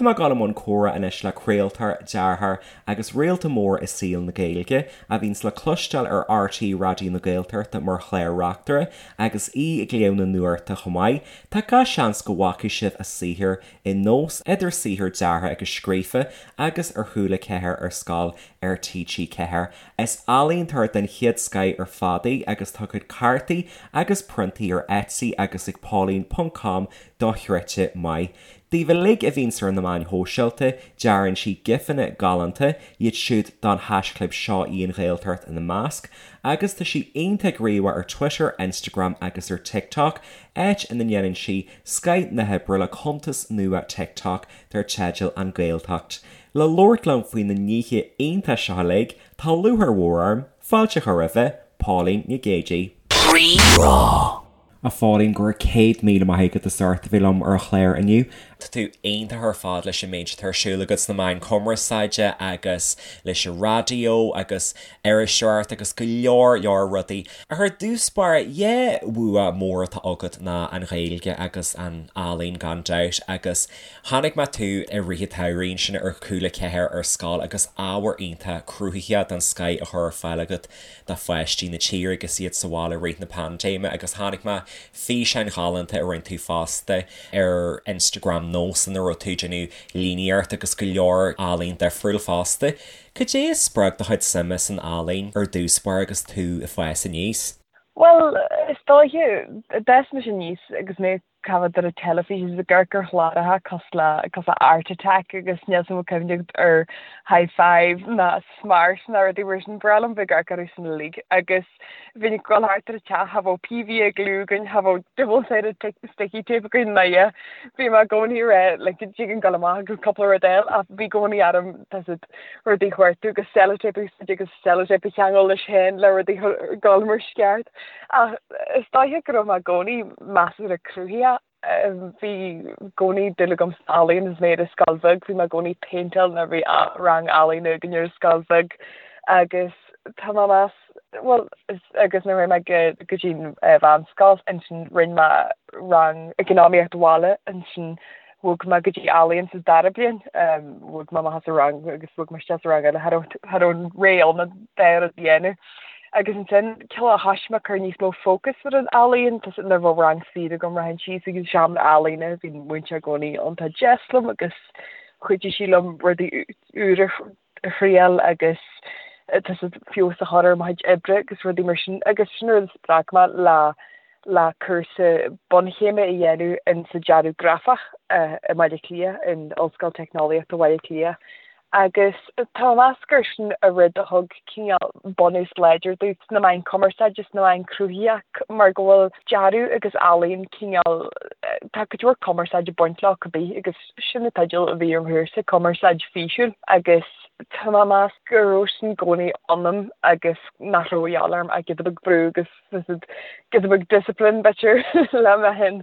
Tá mé ag dul i mbun comhrá anois le craoltóir, dearthóir agus réalta mór i saol na Gaeilge, a bhíonns le cloisteáil ar RTÉ Raidió na Gaeltachta mar chlár-reachtaire agus í ag léamh na nuachta chomh maith. Tá gach seans go bhfacaidh sibh a saothar i Nós, idir saothar deartha agus scríofa, agus ar Chúla 4 ar Scoil ar TG4. Is ealaíontóir den chéad scoith ar fad í agus tá a cuid cártaí agus priontaí ar Etsy agus ag Pauline ponc com dochreidte maith. Daoibh uilig a bhíonns ar na meáin shóisialta, dearann sí gifeanna galánta, iad siúd don haischlib Seo í an Ghaeltacht ina measc, agus tá sí iontach gníomhach ar Twitter, Instagram agus ar TikTok, áit ina ndéanann sí scoith na hoibre le cuntas nua TikTok dar teideal An Ghaeltacht. Le labhairt liom faoi na nithe iontacha seo uilig, tá lúcháir mhór orm fáilte a chur roimhe, Pauline Nic Géidigh. Rí-Rá. A Phauline, go raibh 100,000 maith agat as ucht a bheith liom ar an chlár inniu. Tá tú iontach ar fad leis an méid atá ar siúl agat sna meáin cumarsáide agus leis an raidió agus iriseoireacht agus go leor leor rudaí. Ach ar dtús báire, dhá bhua mór atá agat ná an Ghaeilge agus an ealaín gan dabht agus chonaic mé tú i rith an tsamhraidh ansin ar Cúla 4 ar scoil agus ábhar iontach cruthaitheach den scoith a chur ar fáil agat do pháistí na tíre agus iad sa bhaile i rith na paindéime agus chonaic mé físeáin ghalánta a rinne tú fosta ar Instagram Nós ina raibh tú ag déanamh líníocht agus go leor ealaín difriúil fosta. Cad é a spreag do chuid suime san ealaín ar dtús báire agus tú ag fás aníos? Bhuel, is dóiche, d'fhás mise aníos agus mé ag caitheamh ar an teilifís agus ag amharc ar chláracha cosúil le cosúil le Art Attack agus níl 's a'm an bhfuil cuimhne agat ar Hi5 ná Smart ná rudaí mar sin, ba bhreá liom bheith ag amharc orthu sin uilig agus bhínn ag dul thart ar an teach, cha bheadh PVA glue againn, cha bheadh double sided sticky tape againn ná a dhath. Bhí mé i gcónaí ag rá like dtig linn dul amach agus cúpla rud a fháil ach bhí i gcónaí orm tá 's agat rudaí a chuartú agus sellotape a úsáid agus sellotape a cheangal leis féin le rudaí a dhul mar is ceart. Ach is dóiche go raibh mé i gcónaí measartha cruthaitheach. Bhí i gcónaí dúil agam san ealaíon agus mé ar an scoil bheag. Bhí mé i gcónaí ag péinteáil nuair a bhí rang ealaíne againn ar an scoil bheag agus tá mé ag meas, bhuel, agus nuair a chuaigh mé go dtí an mheánscoil ansin rinne mé rang eacnamaíocht bhaile ansin Bhog mé go dtí ealaíon sa dara bliain. Bhog mé amach as an rang agus bhog mé isteach sa rang eile. Cha raibh cha raibh an ré ann an dá rud a dhéanamh. Agus ansin cineál thoisigh mé ag cur níos mó fócas ar an ealaíon. Tá nuair a bheadh rang saor agam rachainn síos ag an seomra ealaíne. Bhí an múinteoir i gcónaí iontach deas liom agus chuidigh sí liom rudaí úra a thriail agus tá 's agat feabhas a chur ar mo chuid oibre agus rudaí mar sin agus sin rud a spreag mé le le cúrsa bunchéime a dhéanamh in sa dearadh grafach i mBaile Átha Cliath, in Ollscoil Teicneolaíochta Bhaile Átha Cliath agus tá mé ag meas gur sin an rud a thug cineál bunús láidir domh sna meáin cumarsáide, sna meáin cruthaitheach mar go bhfuil dearadh agus ealaíon cineál, tá cuid mhór cumarsáid ag baint leo cibé agus Sin an teideal a bhí ar mo chúrsa, Cumarsáid Físiúil, agus tá mé ag meas go raibh sin i gcónaí ionam agus nach raibh a dhíobháil orm ach giota beag brú agus giota beag discipline b'fhéidir le mé féin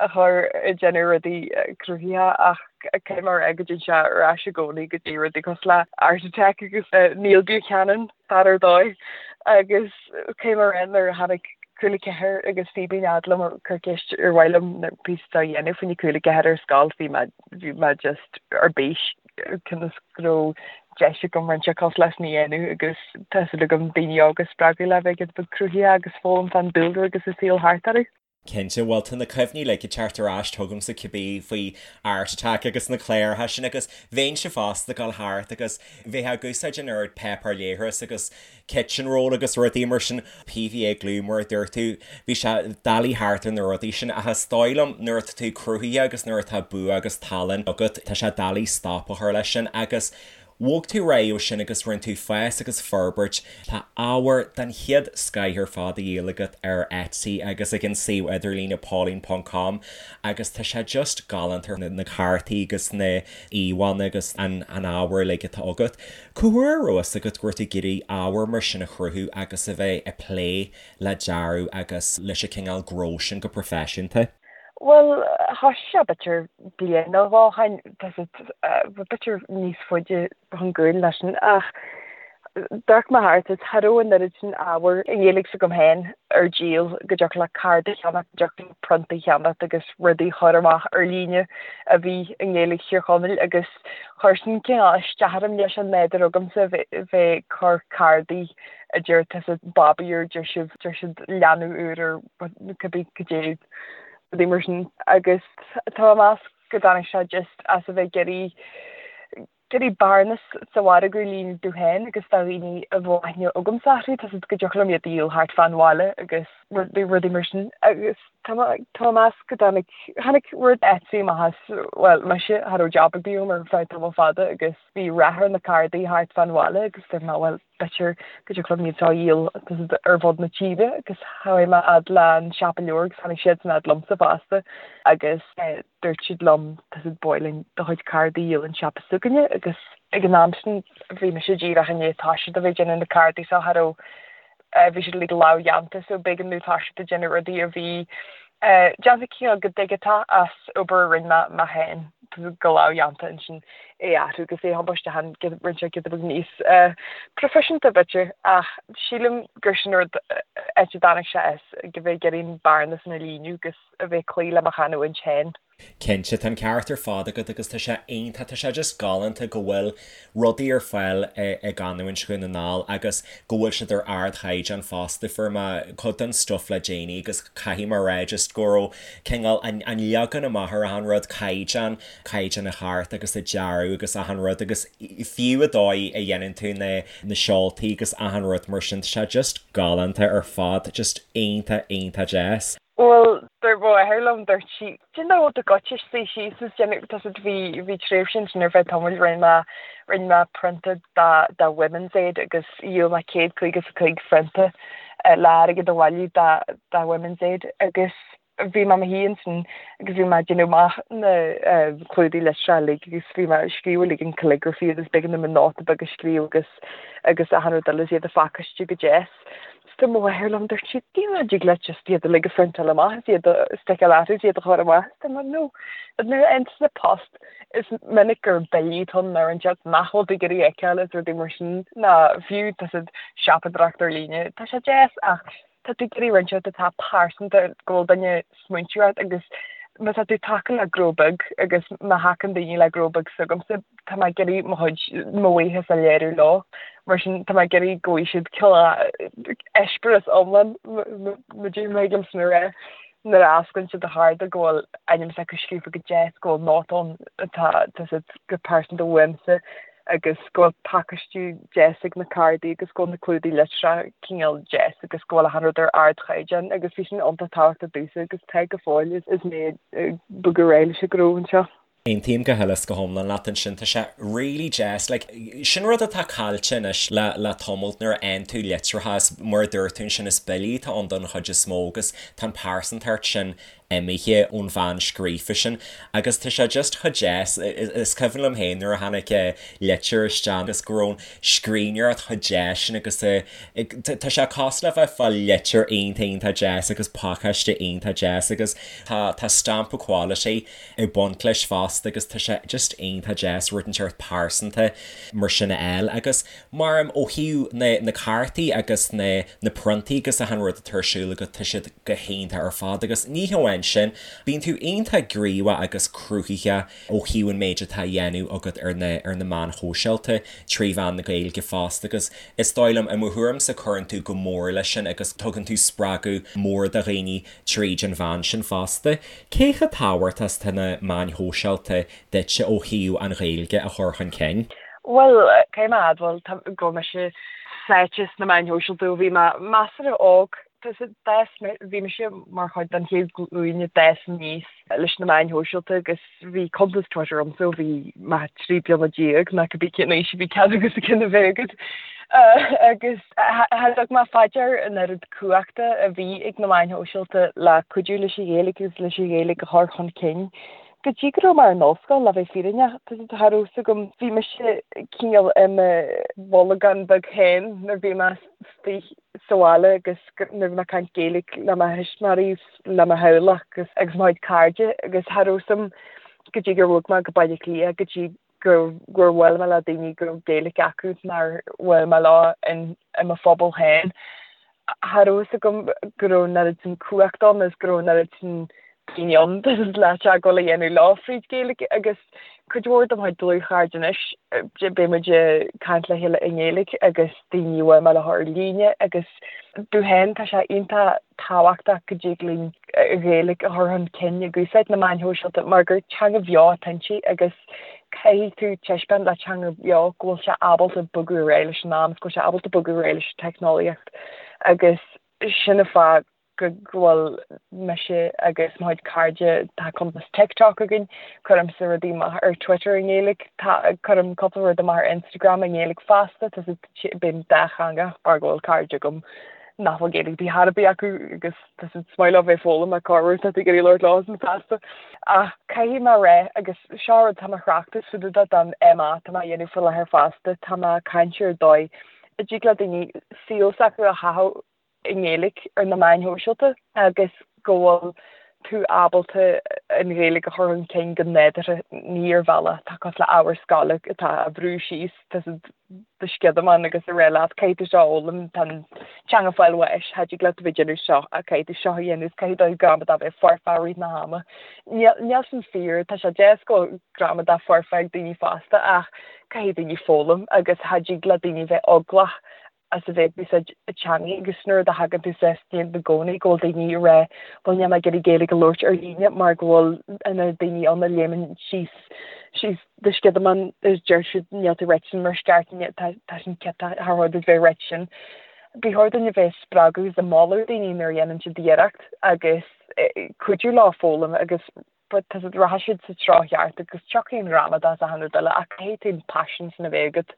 a chur ag déanamh rudaí cruthaitheacha ach caithfidh mé a rá go dtéann sé ar ais i gcónaí go dtí rudaí cosúil le Art Attack agus Neil Buchanan. Fear ar dóigh agus caithfidh mé a rá nuair a tháinig Cúla 4 agus Fíbín fhad liom ag cur ceist ar mhaith liom na píosa a dhéanamh faoina Cúla 4 ar scoil bhí mé bhí mé just ar bís conas go raibh deis agam roinnt cosúil leis sin a dhéanamh agus tá súil agam daoine óga a spreagadh le bheith giota beag cruthaitheach agus foghlaim fán dúlra agus an saol thart orthu. Cinnte, bhuel tá na cuimhní uilig ag teacht ar ais chugamsa cibé faoi Art Attack agus na cláracha sin agus bheinnse fosta ag dul thart agus bheifeá ag úsáid an oiread páipéar leithris agus kitchen roll agus rudaí mar sin, PVA glue mar a dúirt tú, bhí sé doiligh thart ar na rudaí sin ach is dóigh liom nuair atá tú cruthaitheach agus nuair atá bua agus tallann agat tá sé doiligh stop a chur leis sin agus Bhog tú ar aghaidh ó sin agus rinne tú fás agus forbairt. Tá ábhar den chéad scoith ar fad á dhíol agat ar Etsy agus ag an suíomh idirlíne pauline ponc com agus tá sé just galánta na cártaí agus na íomhánna agus an ábhar uilig atá agat. Cá huair a raibh fhios agat go raibh tú ag iarraidh ábhar mar sin a chruthú agus a bheith ag plé le dearadh agus leis an cineál gnó sin go proifisiúnta? Bhuel, thoisigh sé b'fhéidir bliain nó dhó ó shin, tá 's agat, b'fhéidir níos faide chun gcúil ná sin, ach. D'amharc mé thart is cha raibh an oiread sin ábhar i nGaeilge s'agam féin ar díol go dtiocfadh leat cárta a cheannacht, go dtiocfadh leat prionta a cheannacht agus rudaí a chur amach ar líne a bhí i nGaeilge Thír Chonaill agus chuir sin cineál isteach orm leis an nádúr agamsa bheith ag cur cárdaí a deir tusa babaí ar deir sibh deir siad leanbh úr ar cibé cad é rudaí mar sin agus tá mé ag meas go dtáinig sé just as a bheith ag iarraidh iarraidh bearnas sa mhargadh a líonadh domh féin agus do dhaoine a bhfuil aithne agamsa orthu, tá 's agat go dtiocfadh liom iad a dhíol thart fán bhaile agus rudaí, rudaí mar sin. Agus tá mé, tá mé ag meas go dtáinig, tháinig rud Etsy amach as, bhuel, mise, cha raibh jab ar bith agam ar feadh tamall fada agus bhí rath ar na cárdaí thart fán bhaile agus dúirt mé, bhuel, b'fhéidir go dtiocfadh liom iad seo a dhíol tá 's agat ar fud na tíre agus chuaigh mé fhad le an siopa leabhar agus tháinig siadsan fhad liomsa fosta agus dúirt siad liom tá 's agat ba mhaith linn do chuid cárdaí a dhíol an siopa s'againne agus ag an am sin bhí mise díreach i ndiaidh toiseacht a bheith ag déanamh na cárdaí seo cha raibh bhí siad uilig lámhdhéanta so b'éigean domh toiseacht ag déanamh rudaí a bhí déanta cineál go digiteach as obair a rinne mé mé féin go lámhdhéanta ansin é a athrú agus é a thiomáint isteach ann rinne sé giota beag níos proifisiúnta b'fhéidir ach sílim gur sin rud áit a dtáinig sé as go bheith ag iarraidh an bearna sin a líonadh agus a bheith ag cloí le mo chanúint féin. Cinnte, tá an ceart ar fad agat agus tá sé iontach, tá sé just galánta go bhfuil rudaí ar fáil i gcanúint Dhún na nGall agus go bhfuil siad ar ardchaighdeán fosta. Fuair mé cuid den stuif le déanaí agus caithfidh mé a rá just go raibh cineál an leagan amach ar achan rud, caighdeán, caighdeán an chárta agus an dearadh agus achan rud agus fiú an dóigh a dhéanann tú na na seoltaí agus achan rud mar sin, tá sé just galánta ar fad, just iontach, iontach deas. Bhuel, dúirt mo mháthair liom, dúirt sí, do you know do goitse suí síos is déanamh, tá 's agat bhí, bhí tréimhse ansin ar feadh tamaill, rinne mé, rinne mé prionta do, do Women's Aid agus dhíol mé 155 phrionta le airgead a bhailiú do, do Women's Aid agus bhí mé i mo shuí ansin agus bhí mé ag déanamh amach na clúdaigh litreacha uilig agus bhí mé ag scríobh uilig an calligraphy agus b'éigean dom an nóta beag a scríobh agus, agus achan rud eile is iad a phacáistiú go deas. Dúirt mo mháthair liom, dúirt sí, do you know, dtig leat just iad uilig a phriontáil amach is iad a sticeáil orthu is iad a chur amach. Is dúirt mé, no, nuair a fhaigheann tusa post is minic gur billí atá ann ar an teach nach bhfuil tú ag iarraidh a fheiceáil is rudaí mar sin ná fiú tá 's agat siopadóireacht ar líne. Tá sé deas ach tá tú ag iarraidh roinnt rud atá pearsanta go bhfuil duine smaointiú ort agus má tá tú ag tacú le gnó beag agus má thacaíonn daoine le gnó beag s'agamsa, tá mé ag iarraidh mo chuid, mo bhuíochas a léiriú leo. Mar sin, tá mé ag iarraidh go bhfaighidh siad cineál eispéireas iomlán, má thig liom sin a rá, nuair a osclaíonn siad an chárta go bhfuil ainm s'acu scríofa go deas, go bhfuil nóta ann atá, tá 's agat, go pearsanta uaimse. agus go bhfuil pacáistiú deas ag na cárdaí agus go bhfuil na clúdaigh litreach cineál deas agus go bhfuil achan rud ar ardchaighdeán agus bhí sin iontach tábhachtach domhsa agus tá go fóill is mé ag bogadh ar aghaidh leis an ghnó anseo. Aontaím go huile is go hiomlán leat ansin, tá sé really deas, like, sin rud atá caillte anois le le tamall nuair a fhaigheann tú litreacha is mar a dúirt tú ansin is billí atá ann don chuid is mó agus tá an pearsantacht sin imithe ón bpeann scríofa sin agus tá sé just chomh deas, is cuimhin liom féin nuair a tháinig litir isteach agus go raibh an scríbhneoireacht chomh deas sin agus tá sé cosúil le bheith ag fáil litir iontach iontach deas agus pacáiste iontach deas agus tá tá stampa quality ag baint leis fosta agus tá sé just iontach deas rud inteacht pearsanta mar sin a fháil agus mar ó thaobh na na cártaí agus na na priontaí agus achan rud atá ar siúl agat tá siad go hiontach ar fad agus ní hamháin sin, bíonn tú iontach gníomhach agus cruthaitheach ó thaobh an méid atá á dhéanamh agat ar na ar na meáin shóisialta trí mheán na Gaeilge fosta agus is dóigh liom, i mo thuairimse, cuireann tú go mór leis sin agus tugann tú spreagadh mór do dhaoine tríd an mheán sin fosta. Cé chomh tábhachtach is atá na meáin shóisialta duitse ó thaobh an Ghaeilge a chur chun cinn? Bhuel, caithfidh mé a admháil go bhfuil mise sáite sna meáin shóisialta ó bhí mé measartha óg. D'fhás mé, bhí mise mar chuid den chéad ghlúin a d'fhás aníos leis na meáin shóisialta agus bhí cuntas Twitter agamsa ó bhí mé 13 bliana ná cibé cén aois a bhí cead agat ceann a bheith agat. Agus cha dtug mé fá dear an oiread cumhachta a bhí ag na meáin shóisialta le cuidiú leis an Ghaeilge agus leis an Ghaeilge a chur chun cinn. Go dtí go raibh mé ar an ollscoil, le bheith fírinneach, cha raibh 'fhios agam, bhí mise cineál i mo bholgán beag féin nuair a bhí mé istigh sa bhaile agus nuair a bhí mé ag caint Gaeilge le mo thuismitheoirí, le mo theaghlach agus agus mo chuid cairde agus cha raibh 'fhios a'm go dtí gur bhog mé go Baile Átha Cliath go dtí. gur gur bhuail mé le daoine go raibh Gaeilge acu nár bhuail mé leo in i mo phobal féin. Cha raibh fhios agam go raibh an oiread sin cumhacht ann is go raibh an oiread sin daoine ann le teagmháil a dhéanamh leo fríd Gaeilge agus cuid mhór de mo chuid dlúthchairde anois beidh muid ag caint le chéile i nGaeilge agus daoine a bhuail mé leo ar líne agus domh féin tá sé iontach tábhachtach go dtig linn an Ghaeilge a chur chun cinn ag úsáid na meáin shóisialta mar gur teanga bheo atá inti agus caithfidh tú taispeáint le teanga bheo go bhfuil sé ábalta bogadh ar aghaidh leis an am, go bhfuil sé ábalta bogadh ar aghaidh leis an teicneolaíocht agus sin an fáth go bhfuil mise agus mo chuid cairde, tá cuntas TikTok againn, cuirimse rudaí amach ar Twitter i nGaeilge, tá, cuirim cúpla rud amach ar Instagram i nGaeilge fosta, tá bím dátheangach mar go bhfuil cairde agam nach bhfuil Gaeilge ar bith ar bith acu agus tá siad is maith leo bheith ag foghlaim ach corruair tá tú ag iarraidh labhairt leo san feasta. Ach caithfidh mé a rá agus seo rud tá mé ag tráchtas fá dtaobh de don MA tá mé a dhéanamh faoi láthair fosta, tá mé ag caint ar dóigh a dtig le daoine saol s'acu a chaitheamh i nGaeilge ar na meáin shóisialta agus go bhfuil tú ábalta an Ghaeilge a chur chun cinn go nádúrtha, ní ar bhealach atá cosúil le ábhar scoile atá á bhrú síos do sciodamán agus ag rá leat caithfidh tú seo a fhoghlaim, tá an teanga ag fáil bháis, cha dtig leat a bheith ag déanamh seo ach caithfidh tú seo a dhéanamh, caithfidh do ghramadach bheith foirfe i rith na hama. Níl sin fíor, tá sé deas go bhfuil gramadach foirfe ag daoine fosta ach caithfidh daoine foghlaim agus cha dtig le daoine bheith eaglach as a bheith ag úsáid a teangaidh agus nuair a thagann tú suas i gcónaí go bhfuil daoine ag rá bhuel níl mé ag iarraidh Gaeilge a labhairt ar líne mar go bhfuil na daoine ann a léimeann síos síos do sciodamán is deir siad níl tú ag ráit sin mar is ceart tá tá sin ciotach char chóir duit bheith ag ráit sin. Ba chóir dúinn a bheith ag spreagadh is ag moladh daoine nuair a dhéanann siad iarracht agus cuidiú leo foghlaim agus but tá siad, rachaidh siad sa treo cheart agus tiocfaidh an ghramadach is achan rud eile ach caithfidh tú an paisean sin a bheith agat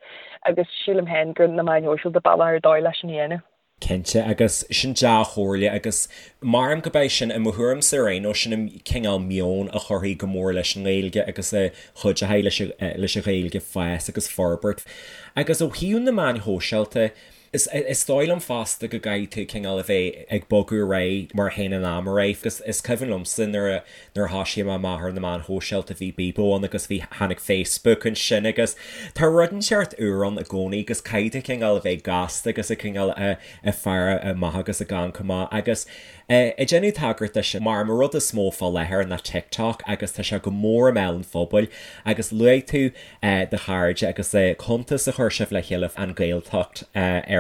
agus sílim féin gur na meáin shóisialta bealach ar dóigh leis sin a dhéanamh. Cinnte, agus sin dea-chomhairle agus maram go beidh sin, i mo thuairimse ar aon nós, sin an cineál meon a chuirfidh go mór leis an nGaeilge agus a chuideoidh leis leis an Ghaeilge fás agus forbairt. Agus ó thaobh na meáin shóisialta, Is dóigh liom fosta go gcaithfidh tú cineál a bheith ag bogadh ar aghaidh mar a théann an am ar aghaidh agus is cuimhin liomsa nuair a nuair a thoisigh mé amach ar na meáin shóisialta bhí Bebo ann agus bhí tháinig Facebook ansin agus tá rud inteacht úr ann i gcónaí agus caithfidh tú cineál a bheith gasta agus ag cineál a ag faire amach agus ag amharc amach agus ag déanamh tagairt de sin mar an rud is mó fá láthair ná TikTok agus tá sé go mór i mbéal an phobail agus luaigh tú do chairde agus cuntas a chuir sibh le chéile An Ghaeltacht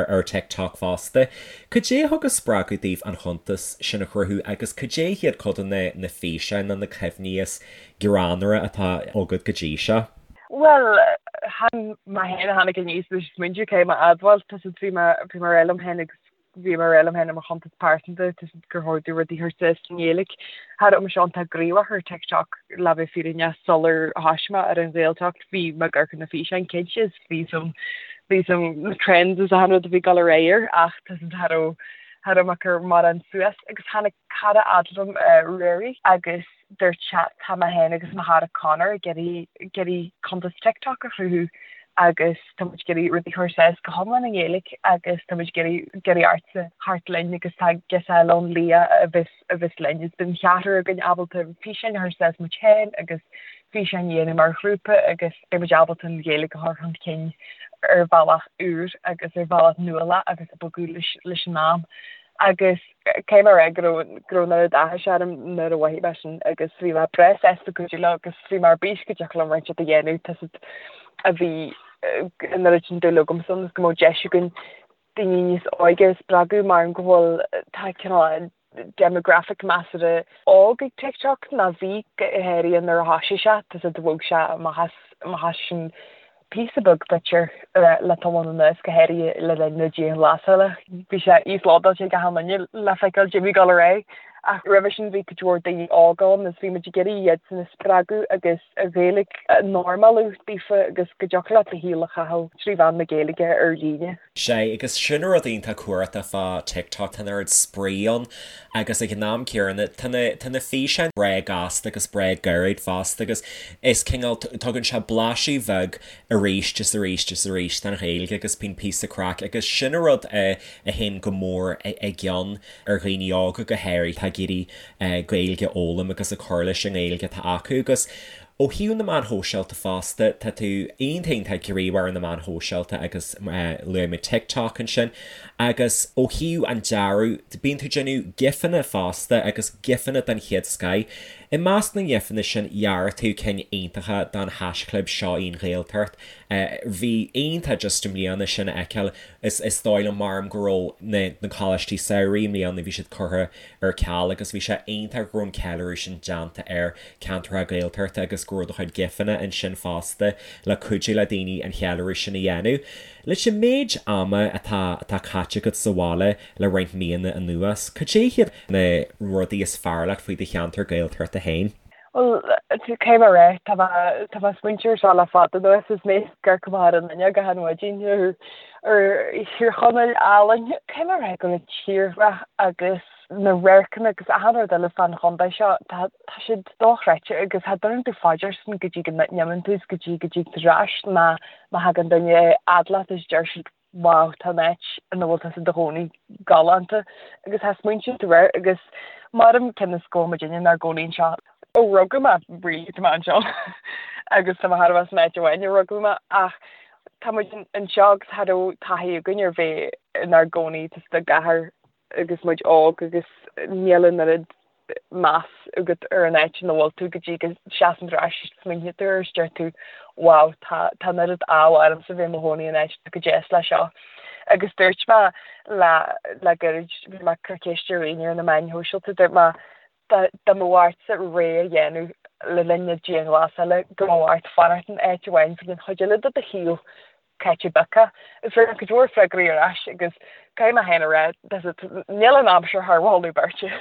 ar TikTok fosta. Cad é a thug an spreagadh daoibh an chuntas sin a chruthú agus cad é hiad cuid de na físeáin nó na cuimhní is greannmhaire atá agat go dtí seo? Bhuel, chan mé féin a tháinig aníos leis an smaointiú, caithfidh mé a admháil, tá siad, bhí mé, bhí mé ag rá liom féin agus Bhí mé ag rá liom féin i mo chuntas pearsanta gur chóir domh rudaí a chur suas i nGaeilge. Cha raibh mise iontach gníomhach ar TikTok le bheith fírinneach sular thoisigh mé ar an Ghaeltacht. Bhí mé ag amharc ar na físeáin cinnte is bhí some bhí some na trends is achan rud a bhí ag dul ar aghaidh air ach tá siad cha raibh cha raibh mé ag cur mórán suas agus tháinig cara fhad liom Ruairí agus dúirt sé tá mé féin agus mo chara Conor ag iarraidh ag iarraidh cuntas TikTok a chruthú agus tá muid ag iarraidh rudaí a chur suas go hiomlán i nGaeilge agus tá muid ag iarraidh ag iarraidh ortsa theacht linn agus tá girseach eile ann Leah a bheas a bheas linn is beidh an cheathrar againn ábalta físeáin a chur suas muid féin agus físeáin a dhéanamh mar ghrúpa agus beidh muid ábalta an Ghaeilge a chur chun cinn ar bhealach úr agus ar bhealach nuálach agus ag bogadh leis leis an am agus caithfidh mé a rá go raibh go raibh an oiread áthais orm nuair a mhothaigh mé sin agus bhí mé breá sásta cuidiú leo agus bhí mé ar bís go dtiocfadh liom roinnt a dhéanamh tá siad a bhí an oiread sin dúil agamsa ann is go mbeadh deis againn daoine níos óige a spreagadh mar go bhfuil tá cineál demographic measartha óg ag TikTok ná bhí go háirithe nuair a thoisigh sé tá siad bhog sé amach as amach as sin píosa beag b'fhéidir le tamall anuas, go háirithe le linn na dianghlasála. Bhí sé íoslódáilte ag achan duine le feiceáil caidé a bhí ag dul ar aghaidh. Ach roimhe sin bhí cuid mhór daoine óga ann agus bhí muid ag iarraidh iadsan a spreagadh agus an Ghaeilge a normalú daofa agus go dtiocfadh leat do shaol a chaitheamh trí mheán na Gaeilge ar líne. Sea, agus sin rud iontach cumhachtach fá TikTok, tá an oiread spraoi ann agus ag an am céanna tá na, tá na físeáin breá gasta agus breá gairid fosta agus is cineál, tugann sé blaiseadh bheag arís is arís is arís den Ghaeilge agus bíonn píosa craic agus sin an rud a théann go mór i gcion ar dhaoine óga go háirithe atá ag iarraidh Gaeilge a fhoghlaim agus ag cur leis an nGaeilge atá acu agus. Ó thaobh na meáin shóisialta fosta, tá tú iontach iontach gníomhach ar na meáin shóisialta agus luaigh mé TikTok ansin. Agus ó thaobh an dearadh, bíonn tú ag déanamh gifanna fosta agus gifanna den chéad scoith. I measc na ngifanna sin, dhear tú cinn iontacha don haischlib Seo í an Ghaeltacht. Bhí iontach just i mbliana sin a fheiceáil. Is dóigh liom maram go raibh na coláistí samhraidh i mbliana, bhí siad curtha ar ceal agus bhí sé iontach go raibh an ceiliúradh sin déanta ar ceantracha Gaeltachta agus go raibh do chuid gifanna ansin fosta le cuidiú le daoine an cheiliúradh sin a dhéanamh. Leis an méid ama atá atá caite agat sa bhaile le roinnt míonna anuas, cad é hiad na rudaí is fearr leat faoi do cheantar Gaeltachta féin? Bhuel, caithfidh mé a rá, tá mé tá mé ag smaointiú ar seo le fada anuas is mé ag amharc amach ar an fhuinneog achan mhaidin ar ar Thír Chonaill álainn. Caithfidh mé a rá go bhfuil an tírdhreach agus na radharcanna agus achan rud eile fán chontae seo, tá tá siad dochreidte agus cha dtabharann tú fá dear sin go dtí go n-imíonn tú is go dtí go dtig tú ar ais ná má thagann duine a fhad leat is deir siad wow tá an áit ina bhfuil tusa i do chónaí galánta agus cha smaointíonn tú air agus maram cionn is go bhfuil muidinne inár gcónaí anseo ó rugadh mé really tá mé anseo agus tá mé thar a bheith san áit amháin a rugadh mé ach tá muid anseo agus cha raibh taithí againn ar bheith inár gcónaí sa gcathair agus muid óg agus níl an oiread meas agat ar an áit ina bhfuil tú go dtí go seasann tú ar ais is smaoiníonn tú air is deir tú wow tá tá an oiread ádh ormsa bheith i mo chónaí in áit atá chomh deas le seo. Agus dúirt mé le le gairid, bhí mé ag cur ceist ar dhaoine ar na meáin shóisialta, dúirt mé dá dá mbeadh ortsa rogha a dhéanamh le linn na dianghlasála go mbeadh ort fanacht in áit amháin don chuid eile de do shaol caite bogtha. Is fuair mé cuid mhór freagraí ar ais agus caithfidh mé féin a rá, níl an aimsir thar mholadh beirte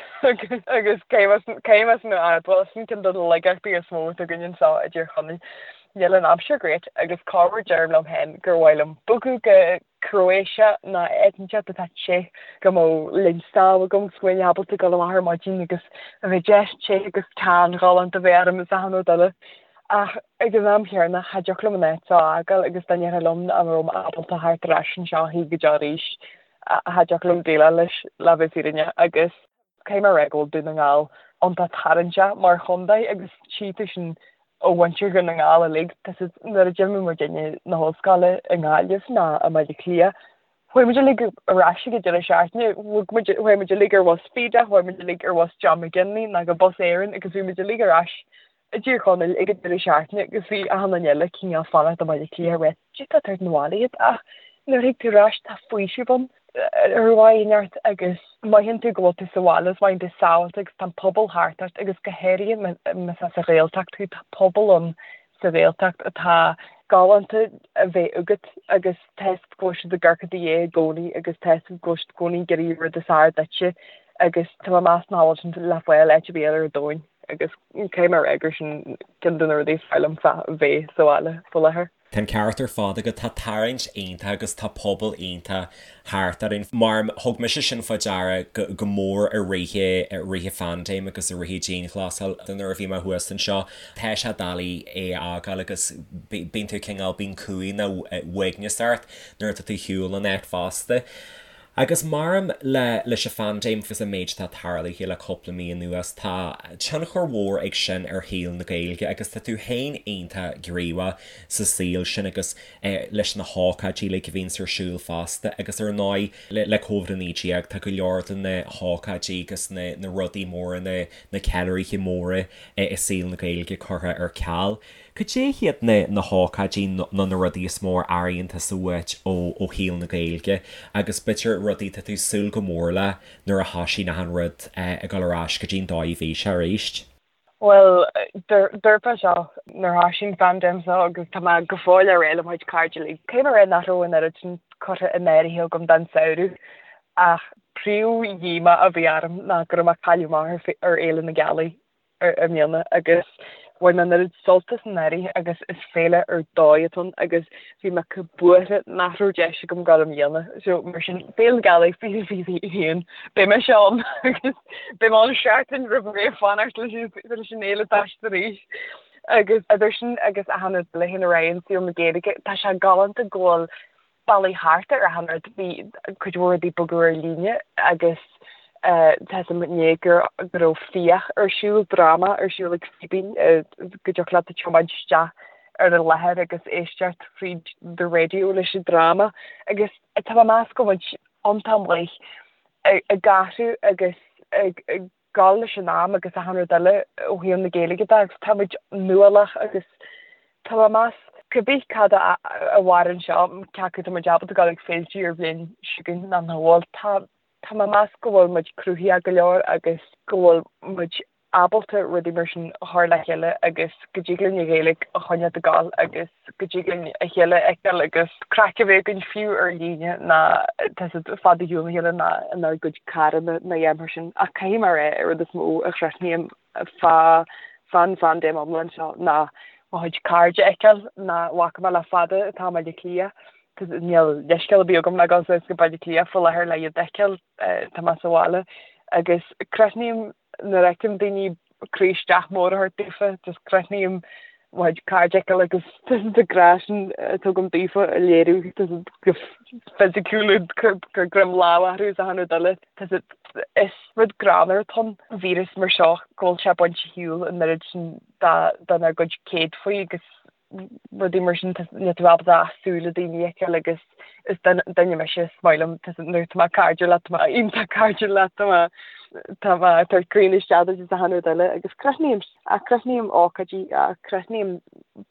agus caithfidh mé sin a admháil, sin ceann de na laigeachtaí is mó atá againn anseo i dTír Chonaill. Níl an aimsir great agus corruair deirim liom féin gur mhaith liom bogadh go Croatia nó áit inteacht atá te go mbeadh linn sámh agam agus go mbeinn ábalta dul amach ar maidin agus a bheith deas te agus tan ghalánta a bheith orm is achan rud eile. Ach ag an am chéanna, cha dtiocfadh liom an áit seo a fhágáil agus dá ndéarfá liom nach raibh mé ábalta theacht ar ais anseo a choíche go deo arís, cha dtiocfadh liom déileáil leis, le bheith fírinneach. Agus caithfidh mé a rá go bhfuil Dún na nGall iontach tarraingteach mar chontae agus tchí tú sin ó mhuintir Dhún na nGall uilig. Tá siad, nuair a d'imigh muidinne na hollscoile i nGaillimh ná i mBaile Átha Cliath, Chuaigh muid uilig ar ais ag an deireadh seachtaine, bhog muid, chuaigh muid uilig ar bhus Feda, chuaigh muid uilig ar bhus John McGinley nó go Bus Éireann agus bhí muid uilig ar ais i dTír Chonaill ag an deireadh seachtaine agus bhí achan duine eile cineál fanacht i mBaile Átha Cliath rith. Cad é atá ag tabhairt 'na bhaile iad ach nuair a thig tú ar ais tá faoiseamh ann ar mhaith neart agus mothaíonn tú go bhfuil tú sa bhaile is mothaíonn tú sábháilte agus tá an pobal thart ort agus go háirithe más as an Ghaeltacht thú tá pobal ann sa Ghaeltacht atá galánta a bheith agat agus tá fhios agat go bhfuil siad ag amharc i do dhiaidh i gcónaí agus tá fhios agat go bhfuil siad i gcónaí ag iarraidh rud is fearr duitse agus tá mé ag meas nach bhfuil sin le fáil áit ar bith eile ar domhan agus caithfidh mé a rá gur sin ceann de na rudaí is fearr liom fá bheith sa bhaile faoi láthair. Tá an ceart ar fad agat, tá tarraingt iontach agus tá pobal iontach thart orainn. Mar thug mise sin fá deara go mór i rith i rith an phaindéim agus i rith an dianghlasáil nuair a bhí mé thuas anseo. Tá sé doiligh é a fhágáil agus bíonn tú cineál, bíonn cumhaidh nó uaigneas ort nuair atá tú ar shiúl ón áit fosta. Agus maram le leis an phaindéim agus an méid atá tarlaithe le cúpla mí anuas, tá tionchar mhór ag sin ar shaol na Gaeilge agus tá tú féin iontach gníomhach sa saol sin agus leis na hócáidí uilig a bhíonns ar siúl fosta agus ar ndóigh le Covid-19 tá go leor de na hócáidí agus na na rudaí móra, na na ceiliúraithe móra i saol na Gaeilge curtha ar ceal. Cad é hiad na na hócáidí nó na rudaí is mó a airíonn tusa uait ó ó shaol na Gaeilge agus b'fhéidir rudaí atá tú ag súil go mór le nuair a thoisíonn achan rud ag dul ar ais go dtí an dóigh a bhí sé arís? Bhuel, dúirt mé seo nuair a thoisigh an phaindéim seo agus tá mé go fóill á rá le mo chuid cairde uilig. Caithfidh mé a rá nach raibh an oiread sin curtha in áirithe agam don samhradh ach príomh-dhíomá a bhí orm ná go raibh mé ag cailleadh amach ar Fhéile na Gealaí. i mbliana agus bhain mé an oiread sult as anuraidh agus is féile ar dóigh atá ann agus bhí mé chomh buartha nach raibh deis agam dul i mbliana. So mar sin Féile na Gealaí 2021 beidh mise ann agus beidh mé ann seachtain roimh ré fanacht leis an fhéile toiseacht arís. Agus idir sin agus achan rud eile théann ar aghaidh in saol na Gaeilge, tá sé galánta go bhfuil bealaí thart ar achan rud. Bhí cuid mhór rudaí bogadh ar líne agus. Tá 'fhios a'm inné go raibh Fiach ar siúl, dráma ar siúl ag Fíbín, go dtiocfadh leat tiomáint isteach ar an láthair agus éisteacht fríd the radio leis an dráma agus tá mé ag meas go bhfuil muid iontach maith ag athrú agus ag gabháil leis an am agus achan rud eile ó thaobh na Gaeilge de agus tá muid nuálach agus tá mé ag meas cibé cad a mhaireann seo, cé acu tá muid ábalta dul ag féilte ar bhliain seo chugainn nó nach bhfuil, tá tá mé ag meas go bhfuil muid cruthaitheach go leor agus go bhfuil muid ábalta rudaí mar sin a chur le chéile agus go dtig linn an Ghaeilge a choinneáil ag gabháil agus go dtig linn a chéile a fheiceáil agus craic a bheith againn fiú ar líne ná tá 'fhios a'd fad ar shiúl óna chéile ná inár gcuid carranna ná a dhath mar sin. Ach caithfidh mé a rá an rud is mó a chrothnaím fá fán phaindéim iomlán seo ná mo chuid cairde a fheiceáil nach bhfaca mé le fada atá i mBaile Átha Cliath. Níl leithscéal ar bith agam le dul suas go Baile Átha Cliath faoi láthair le iad a fheiceáil, tá mé sa bhaile agus crothnaím nuair a fheicim daoine croí isteach mór a thabhairt daofa, just crothnaím mo chuid cairde a fheiceáil agus an grá sin atá agam daofa a léiriú go fisiciúil gur greim lámh orthu is achan rud eile. Is rud greannmhar atá ann, víreas mar seo, go bhfuil sé ag baint ar shiúl an oiread sin dár gcuid céadfaí agus rudaí mar sin, níl tú ábalta ach súile daoine a fheiceáil agus is duine mise, is maith liom, nuair atá mé cairdiúil leat, tá mé iontach cairdiúil leat, tá mé tá mé ag tabhairt croí isteach duit is achan rud eile agus crothnaím, ach crothnaím ócáidí, ach crothnaím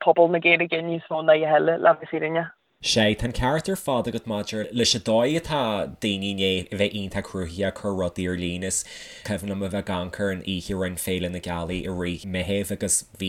pobal na Gaeilge níos mó ná a dhath eile, le bheith fírinneach. Sea, tá an ceart ar fad agat maidir leis an dóigh atá daoine i ndiaidh a bheith iontach cruthaitheach ag cur rudaí ar líne. Is cuimhin liom a bheith ag amharc ar an oíche a rinne Féile na Gealaí i rith Meitheamh agus bhí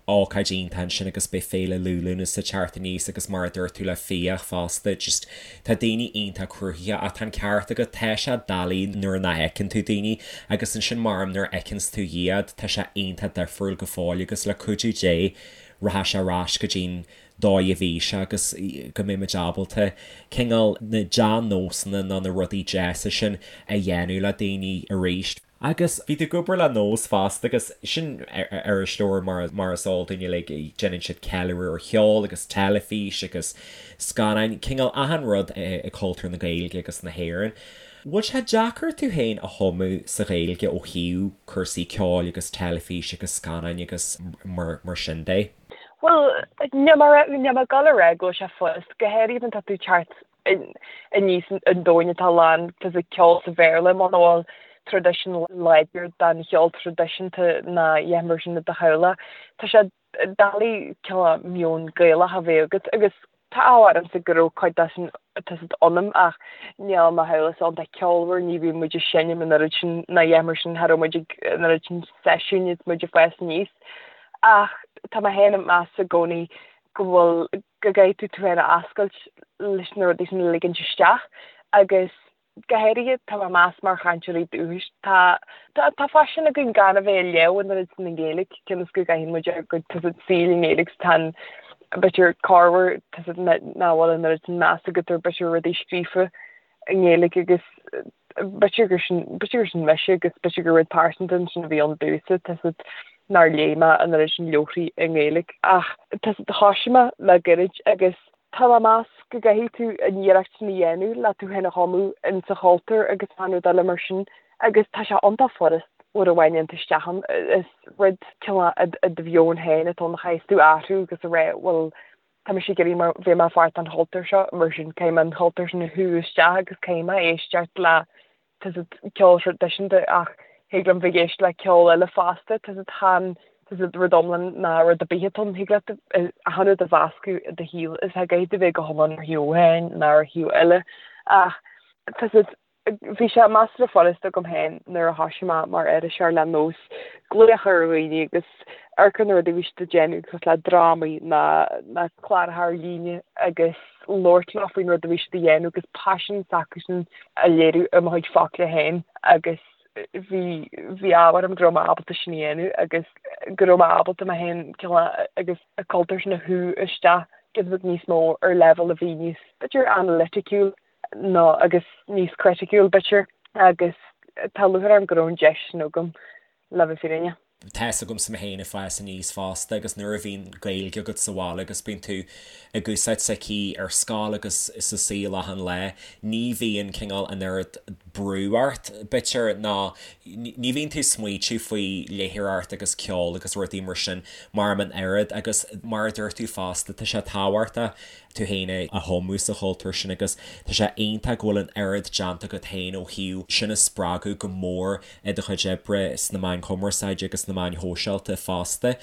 ócáid iontach ansin agus beidh Féile Liú Lúnasa ag teacht aníos agus mar a dúirt tú le Fiach fosta, just tá daoine iontach cruthaitheach ach tá an ceart agat, tá sé doiligh nuair nach fheiceann tú daoine agus ansin mar nuair a fheiceanns tú iad tá sé iontach difriúil go fóill agus le cuidiú Dé rachaidh sé ar ais go dtí'n dóigh a bhí sé agus go mbeidh muid ábalta cineál na dea-nósanna nó na rudaí deasa sin a dhéanamh le daoine arís. Agus bhí tú ag obair le Nós fosta agus sin iriseoir mar mar is eol dúinn uilig, déanann siad ceiliúradh ar cheol agus teilifís agus scannáin, cineál achan rud i cultúr na Gaeilge agus na hÉireann. Bhfuil sé deacair tú féin a thumadh sa Ghaeilge ó thaobh cúrsaí ceoil agus teilifís agus scannáin agus mar sin de? Bhuel, níl mé níl mé ag dul a rá go bhfuil sé furast, go háirithe má tá tú ag teacht aníos i ndomhan atá lán de cheol sa Bhéarla, muna bhfuil traidisiún láidir den cheol traidisiúnta ná a dhath mar sin i do theaghlach. Tá sé doiligh cineál meon Gaelach a bheith agat agus Tá ádh ormsa go raibh cuid de sin tá 'fhios a'd ionam ach níl mo theaghlach iontach ceolmhar, ní bhíonn muid ag seinm an oiread sin ná a dhath mar sin, cha raibh muid ag an oiread sin seisiúin is muid ag fás aníos. Ach tá mé féin ag meas i gcónaí go bhfuil, go gcaithfidh tú tú féin a oscailt leis na rudaí sin a ligint isteach agus Go háirithe, tá mé ag meas mar chainteoirí dúchais, tá tá faisean againn gan a bheith ag léamh an oiread sin i nGaeilge, cionn is go gcaitheann muid ár gcuid tá 'fhios a'd saoil i nGaeilge 's tá an b'fhéidir corruair tá 'fhios a'd nach bhfuil an oiread sin meas agat ar b'fhéidir rudaí scríofa i nGaeilge agus b'fhéidir gur sin b'fhéidir gur sin mise agus b'fhéidir gur rud pearsanta ansin a bhí ann domhsa tá 'fhios a'd nár léigh mé an oiread sin leabharthaí i nGaeilge ach tá 'fhios a'd thoisigh mé le gairid agus Tá mé ag meas go gcaithfidh tú an iarracht sin a dhéanamh le tú féin a thumadh in sa chultúr agus achan rud eile mar sin agus tá sé iontach furast uair amháin a dhéanamh isteach ann. Is rud cineál i do mheon féin atá ann a chaithfeas tú athrú agus a rá bhuel tá mise ag iarraidh mar bheith mar pháirt den chultúr seo mar sin caithfidh mé an cultúr sin a shú isteach agus caithfidh mé éisteacht le tá 'fhios a'd ceol traidisiúnta ach thig liom bheith ag éisteacht le ceol eile fosta, tá 'fhios a'd chan tá 'fhios a'd rud iomlán ná rud ar bith atá ann, thig leat achan rud a mheascadh i do shaol is cha gcaithfidh tú bheith go hiomlán ar thaobh amháin ná ar thaobh eile ach tá 'fhios a'd bhí sé measartha furast agam féin nuair a thoisigh mé mar iriseoir le Nós glaoch ar dhaoine agus amharc ar na rudaí a bhí siad ag déanamh cosúil le drámaí ná ná cláracha ar líne agus labhairt leo faoin rud a bhí siad a dhéanamh agus paisean s'acusan a léiriú i mo chuid focla féin agus bhí bhí ádh orm go raibh mé ábalta sin a dhéanamh agus go raibh mé ábalta mé féin cineál agus an cultúr sin a shú isteach giota beag níos mó ar leibhéal a bhí níos b'fhéidir analyticiúil nó agus níos criticiúil b'fhéidir agus tá lúcháir orm go raibh an deis sin agam le bheith fírinneach. Tá 'fhios agamsa mé féin ag fás aníos fosta agus nuair a bhíonn Gaeilge agat sa bhaile agus bíonn tú ag úsáid s'aici ar scoil agus sa saol achan lá, ní bhíonn cineál an oiread. brú ort, b'fhéidir, ná ní bhíonn tú ag smaoitiú faoi léitheoireacht agus ceol agus rudaí mar sin mar an oiread agus mar a dúirt tú fosta, tá sé tábhachtach tú féin a thumadh sa chultúr sin agus tá sé iontach go bhfuil an oiread déanta agat féin ó thaobh sin a spreagadh go mór i do chuid oibre sna meáin chumarsáide agus sna meáin shóisialta fosta.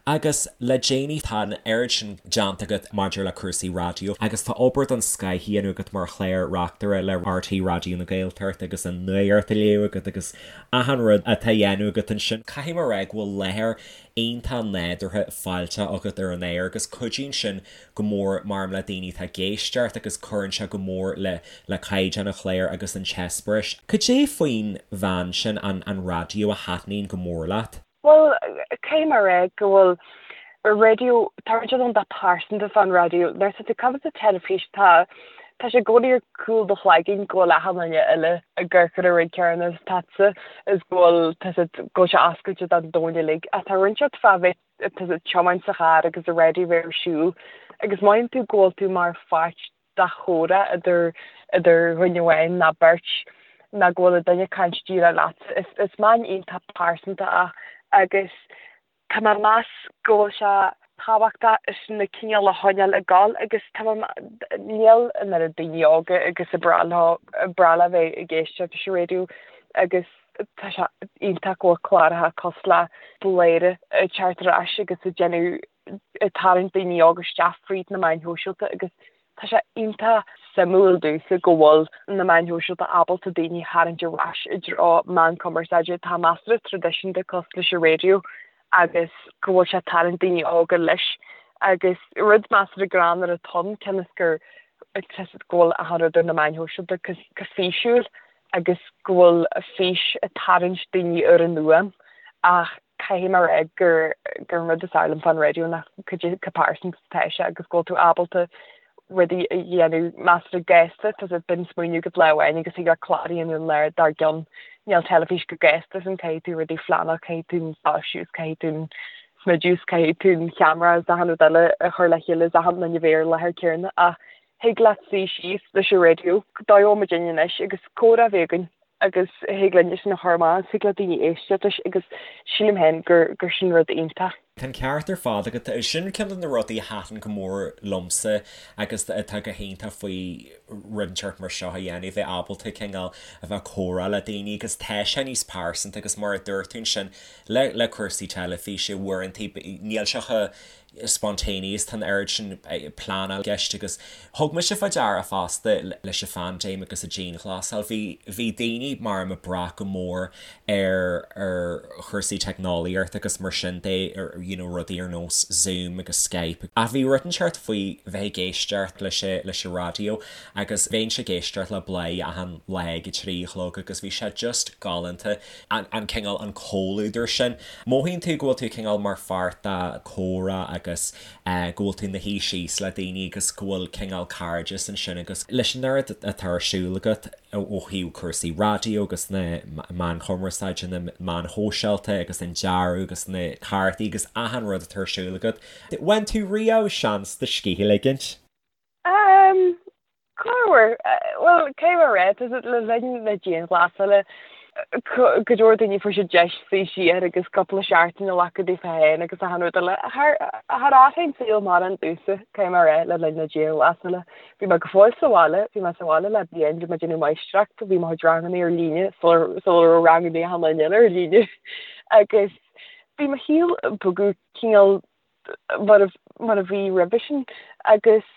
Agus le déanaí tá an oiread sin déanta agat maidir le cúrsaí raidió agus tá obair den scoth á dhéanamh agat mar chlár reachtaire le RTÉ Raidió na Gaeltachta agus an nuacht á léamh agat agus achan rud atá á dhéanamh agat ansin. Caithfidh mé a rá go bhfuil láthair iontach nádúrtha fáilteach agat ar an aer agus cuidíonn sin go mór maram le daoine atá ag éisteacht agus cuireann sé go mór le le caighdeán an chláir agus an t-eispéireas. Cad é faoin mheán sin, an an raidió, a thaitníonn go mór leat? Bhuel, caithfidh mé a rá go bhfuil raidió, tá rud iontach pearsanta fán raidió. Nuair atá tú ag caint sa teilifís tá tá sé i gcónaí ar chúl do chloiginn go bhfuil achan duine eile ag amharc ar an rud céanna is tusa is go bhfuil tá sé go bhfuil sé oscailte don domhan uilig. Ach tá rud inteacht fá bheith tá tú ag tiomáint sa charr agus an raidió bheith ar siúl agus mothaíonn tú go bhfuil tú mar pháirt de chomhrá idir idir dhuine amháin ná beirt ná go bhfuil an duine ag caint díreach leatsa. Is is meán iontach pearsanta é agus tá mé ag meas go bhfuil sé tábhachtach is na cineál a choinneáil ag gabháil agus tá mé níl an oiread daoine óga agus a breá leo breá leo bheith ag éisteacht leis an raidió agus tá sé iontach go bhfuil cláracha cosúil le Bladhaire ag teacht ar ais agus ag déanamh ag tarraingt daoine óga isteach fríd na meáin shóisialta agus tá sé iontach suimiúil domhsa go bhfuil na meáin shóisialta ábalta daoine a tharraingt ar ais i dtreo meán cumarsáide atá measartha traidisiúnta cosúil leis an raidió agus go bhfuil sé ag tarraingt daoine óga leis agus rud measartha greannmhar atá ann cionn is gur go bhfuil achan rud ar na meáin shóisialta go físiúil agus go bhfuil fís ag tarraingt daoine ar an fhuaim ach caithfidh mé a rá gur gur an rud is fearr liom fán raidió ná cad é chomh pearsanta is atá sé agus go bhfuil tú ábalta rudaí a dhéanamh measartha gasta, tá sé bíonn smaoineamh agat lá amháin agus thig leat clár a dhéanamh an lá dár gcionn. Níl teilifís chomh gasta sin, caithfidh tú rudaí a phleanáil, caithfidh tú an soilsiú is caithfidh tú an smideadh is caithfidh tú an cheamara is achan rud eile a chur le chéile is achan duine a bheith ar an láthair céanna ach Thig leat suí síos leis an raidió, dóigh a bhfuil muid anois agus comhrá a bheith againn agus thig linn sin a chur amach agus thig le daoine éisteacht leis agus sílim féin gur gur sin rud iontach. Tá an ceart ar fad agat. Sin ceann de na rudaí a thaitin go mór liomsa agus atá go hiontach faoi rud inteacht mar seo a dhéanamh, bheith ábalta cineál a bheith ag comhrá le daoine agus tá sé níos pearsanta agus mar a dúirt tú ansin le le cúrsaí teilifíse uaireanta níl sé chomh spontaneous, tá an oiread sin pleanáil i gceist agus thug mise fá deara fosta leis an phaindéim agus an dianghlasáil, bhí, bhí daoine mar ag brath go mór ar, ar chúrsaí teicneolaíochta agus mar sin de, you know rudaí ar nós Zoom agus Skype. Ach bhí rud inteacht faoi bheith ag éisteacht leis an, leis an raidió agus bheinnse ag éisteacht le Bladhaire achan lá ag a 3 a chlog agus bhí sé just galánta. an cineál, an comhluadar sin. Mothaíonn tú go bhfuil tú cineál mar pháirt de chomhrá agus go bhfuil tú ina shuí síos le daoine agus go bhfuil cineál cairdeas ansin agus leis an oiread atá ar siúl agat ó thaobh cúrsaí raidió agus na meáin chumarsáide, na meáin shóisialta agus an dearadh agus na cártaí agus achan rud atá ar siúl agat. Bhain tú riamh seans do scíth a ligint? Corruair, bhuel, cé mar a tá le linn na dianghlasála, go leor daoine fuair siad deis suí siar agus cúpla seachtain a ghlacadh daofa féin agus achan rud eile. Char athraigh an saol mórán domhsa, cé mar é, le linn na dianghlasála. Bhí mé go fóill sa bhaile, bhí mé sa bhaile le bliain, bhí mé ag déanamh máistreacht, bhí mo chuid ranganna ar líne sular raibh ranganna achan duine eile ar líne. Agus bhí mo shaol ag bogadh cineál mar a bhí roimhe sin agus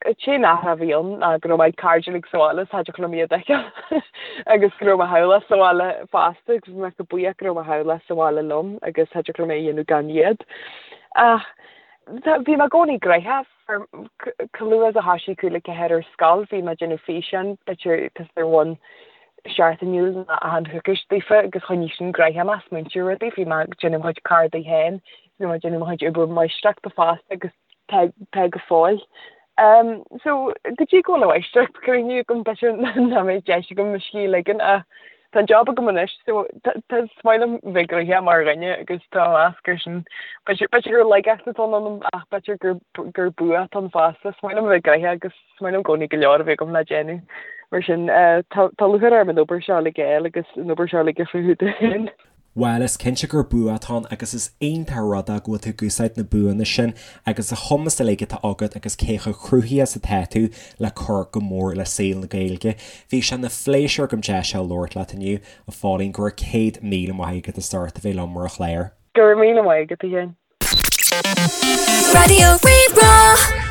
An t-aon athrú a bhí ann ná go raibh mo chairde uilig sa bhaile is cha dtiocfadh liom iad a fheiceáil agus go raibh mo theaghlach sa bhaile fosta agus bhí mé chomh buíoch go raibh mo theaghlach sa bhaile liom agus cha dtiocfadh liom é a dhéanamh gan iad. Ach bhí mé i gcónaí gnoitheach. Chomh luath is a thoisigh 3:55 ar scoil bhí mé ag déanamh físeáin, b'fhéidir ar bhonn seachtainiúil nó achan choicís daofa agus choinnigh sin gnoitheach mé, smaointiú ar rudaí. Bhí mé ag déanamh mo chuid cárdaí féin, bhí mé ag déanamh mo chuid obair máistreachta fosta agus tá go fóill. So, go dtí go bhfuil an mháistreacht críochnaithe agam, b'fhéidir nach mbeidh deis agam mo scíth a ligean ach tá an job agam anois so tá is maith liom bheith gnoitheach mar dhuine agus tá mé ag meas gur sin b'fhéidir gur laigeacht atá ionam ach b'fhéidir gur gur bua atá ann fosta. Is maith liom bheith gnoitheach agus is maith liom i gcónaí go leor a bheith agam le déanamh. Mar sin, tá lúcháir orm an obair seo uilig a fháil agus an obair seo uilig a chruthú dúinn. Bhuel, is cinnte gur bua atá ann agus is iontach an rud é go bhfuil tú ag úsáid na buanna sin agus an chumas uilig atá agat agus cé chomh cruthaithe is atá tú le cur go mór le saol na Gaeilge. Bhí sé ina phléisiúr agam deis a labhairt leat inniu, a Phauline, go raibh 100,000 maith agat as ucht a bheith liom ar an chlár. Go raibh míle maith agat, a Sheáin. Raidió Rí-Rá.